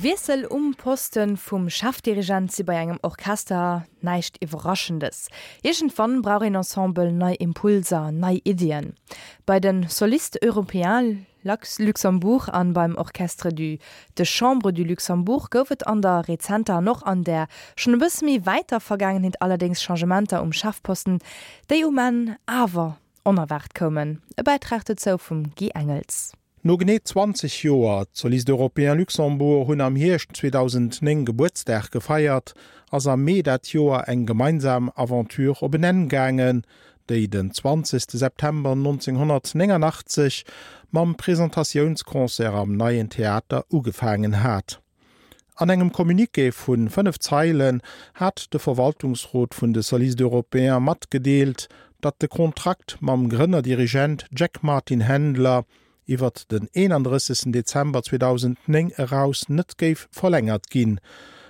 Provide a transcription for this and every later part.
Wiessel um Poste vum Chefdirigent si bei engem Orchester näischt Iwwerraschendes. Iergendwann brauch een Ensemble nei Impulser, nei Iddien. Bei de Solistes Européens Luxembourg an beim Orchestre du de Chambre du Luxembourg gouf et an der rezenter an och an där schonn e bësse méi wäiter Vergaangenheet allerdéngs Changementer um Chefposten, déi um Enn awer onerwaart koumen. E Bäitrag dozou vum Guy Engels. No genee 20 Joer, d'Solistes Européens Luxembourg hunn am Hierscht 2009 Gebuertsdag gefeiert, ass am Mee dat Joer eng gemeinsam Aventure op en Enn gaangen, déi den 20 September 1989 mam Presentatiounsconcert am Neien Theater ugefaangen hat. An engem Communiqué vu 5 Zeilen hat de Verwaltungsrot vun de Solistes Européens matgedeelt, datt de Kontrakt mam Grënnerdirigent Jack Martin Handler iwwert den 31 Dezember 2009 eraus net géif verlängert ginn,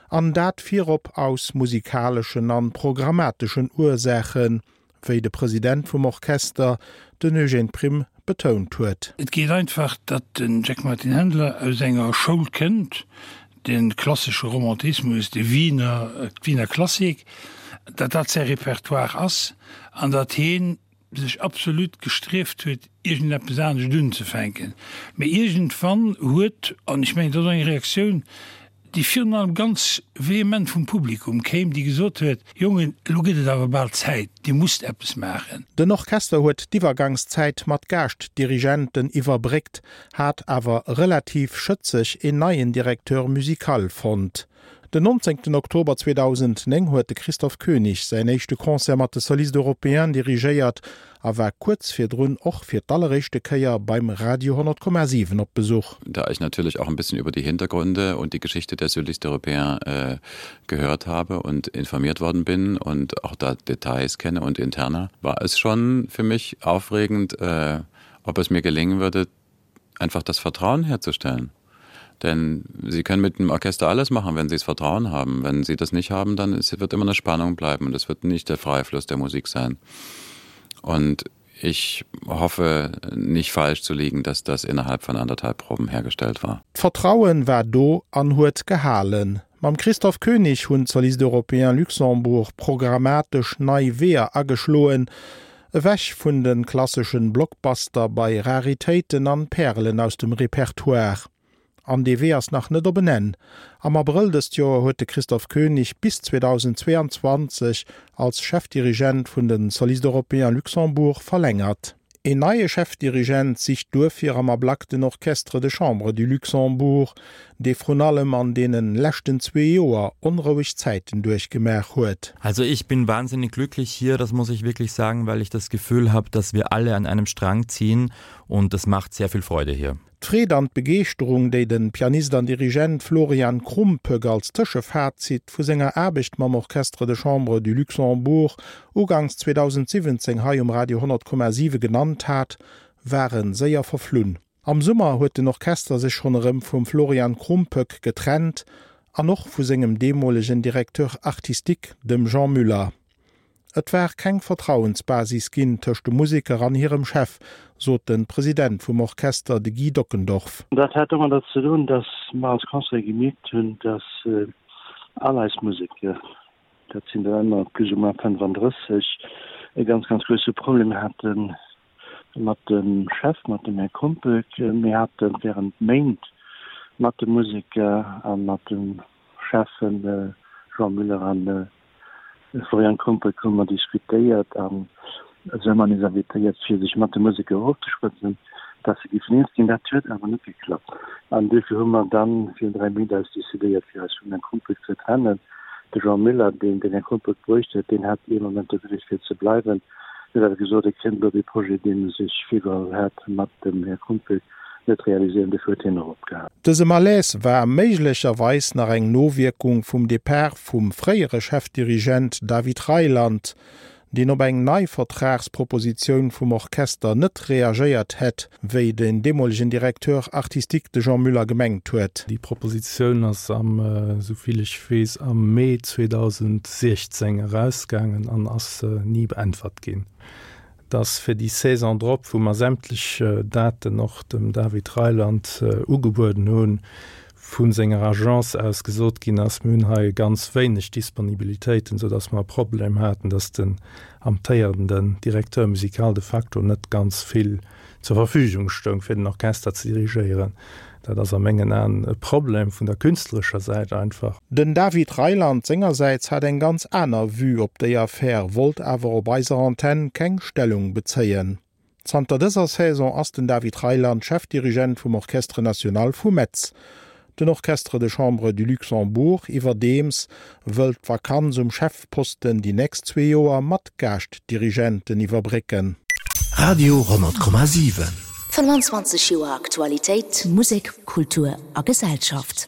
an dat virop aus musikaleschen an programmateschen Ursaachen, wéi de President vum Orchester, den Eugène Prim, betount huet. Et geet einfach, datt den Jack Martin Handler aus enger Schoul kënnt, de klassesche Romantismus, de Wiener, d'Wiener Klassik, datt dat säi Repertoire ass an datt hien sech absolut gestrieft huet, iergendeppes anescht unzefänken. Mee iergendwann huet, an ech mengen, dat ass och eng Reaktioun, déi virun allem ganz vehement vum Publikum kéim, déi gesot huet, Jongen, elo gëtt et awer bal Zäit, Dir musst eppes maachen. Den Orchester huet d'Iwwergangszäit mat Gaaschtdirigenten iwwerbréckt, hat awer relativ schëtzeg een neien Directeur musical fonnt. Den 19 Oktober 2009 huet de Christoph König säin éischte Concert mat de Solistes Européens dirigéiert a war kuerz virdrun och fir d'alleréischte Kéier beim Radio 100,7 op Besuch. Da ich natürlich auch ein bisschen über die Hintergründe und die Geschichte der Solistes Européens äh, gehört habe und informiert worden bin und auch da Details kenne und interner, war es schon für mich aufregend, äh, ob es mir gelingen würde, einfach das Vertrauen herzustellen. Denn sie können mit dem Orchester alles machen, wenn sie es Vertrauen haben. Wenn sie das nicht haben, dann ist, wird immer eine Spannung bleiben und es wird nicht der freie Fluss der Musik sein. Und ich hoffe nicht falsch zu liegen, dass das innerhalb von anderthalb Proben hergestellt war. D'Vertrauen war do an huet gehalen. Mam Christoph König hunn d'Solistes Européens Luxembourg programmatesch nei Weeër ageschloen, ewech vun de klasseschen Blockbuster bei Raritéiten an Pärelen aus dem Repertoire. An dee Wee ass nach net op en Enn. Am Abrëll dëst Joer huet de Christoph König bis 2022 als Chefdirigent vun de Solistes Européens Luxembourg verlängert. Een neie Chefdirigent sicht duerfir am Ablack den Orchestre de Chambre du Luxembourg, dee vrun allem an deene leschten zwee Joer onroueg Zäiten duerchgemaach huet. Also ich bin wahnsinnig glücklich hier, das muss ich wirklich sagen, weil ich das Gefühl habe, dass wir alle an einem Strang ziehen und das macht sehr viel Freude hier. D'Freed an d'Begeeschterung, déi de Pianist an Dirigent Florian Krumpöck als Tëschefazit vu senger Aarbecht mam Orchestre de Chambre du Luxembourg uganks 2017 hei um Radio 100,7 genannt hat, ware séier verflunn. Am Summer huet den Orchester sech schonn erëm vum Florian Krumpöck getrennt an och vu sengem deemolegen Directeur artistique, dem Jean Müller. Et war keng Vertrauensbasis ginn tëscht de Museker an hirem Chef, sot de President vum Orchester, de Guy Dockendorf. Dat hat domadder ze doen, datt mer als Conseil gemierkt hunn, datt all eis Museker, dat sinn der ëmmer plus ou moins 35, e ganz, ganz grousse Problem hate mat dem Chef, mat dem Här Krumpöck. Mir hate während Méint mat de Museker a mat de Cheffen Jean Müller an Florian Krumpöck hu mer diskutéiert an se hu eis invitéiert fir sech mat de Museker ofzeschwätzen, dass se géifen eens ginn. Dat huet awer net geklappt an duerfir hu mer dann virun 3 Méint eis decidéiert fir eis vum Här Krumpöck ze trennen. De Jean Müller, deen den Här Krumpöck bruecht huet, deen hat ee Moment de Wille fir ze bleiwen, huet awer gesot, e kéint elo dee Projet, deen e sech virgeholl hat mat dem Här Krumpöck, net realiséieren, dofir huet hien och opgehal. Dëse Malaise war méiglecherweis nach eng Nowierkung vum Depart vum fréiere Chefdirigent David Reiland, deen op eng nei Vertragspropositioun vum Orchester net reagéiert hätt, wéi den deemolegen Directeur artistique, de Jean Müller, gemengt huet. Déi Propositioun ass am, esou vill ech weess, am Mee 2016 erausgaangen an ass ni beäntwert ginn. dass fir déi Saison drop, wou mer sämtlech Daten och dem David Reiland ugebueden hunn, vu senger Agence aus gesot ginn ass, mir hunn hei ganz wéineg Disponibilitéiten, soudass mer e Problem haten, dass den amtéierenden Directeur musical de facto net ganz vill zur Verfügung stoung, fir den Orchester ze dirigéieren. Dat ass a mengen Aen e Problem vun der künstlerescher Säit einfach. Den David Reiland sengersäits hat eng ganz aner Vue op déi Affär, wollt awer op eiser Antenn keng Stellung bezéien. Zanter dëser Saison ass den David Reiland Chefdirigent vum Orchestre National vu Metz. Den Orchestre de Chambre du Luxembourg iwwerdeems wëllt d'Vakanz um Chefposten déi nächst zwee Joer mat Gaaschtdirigenten iwwerbrécken. Radio 10,7. 25 Joer Aktualitéit, Musek, Kultur a Gesellschaft.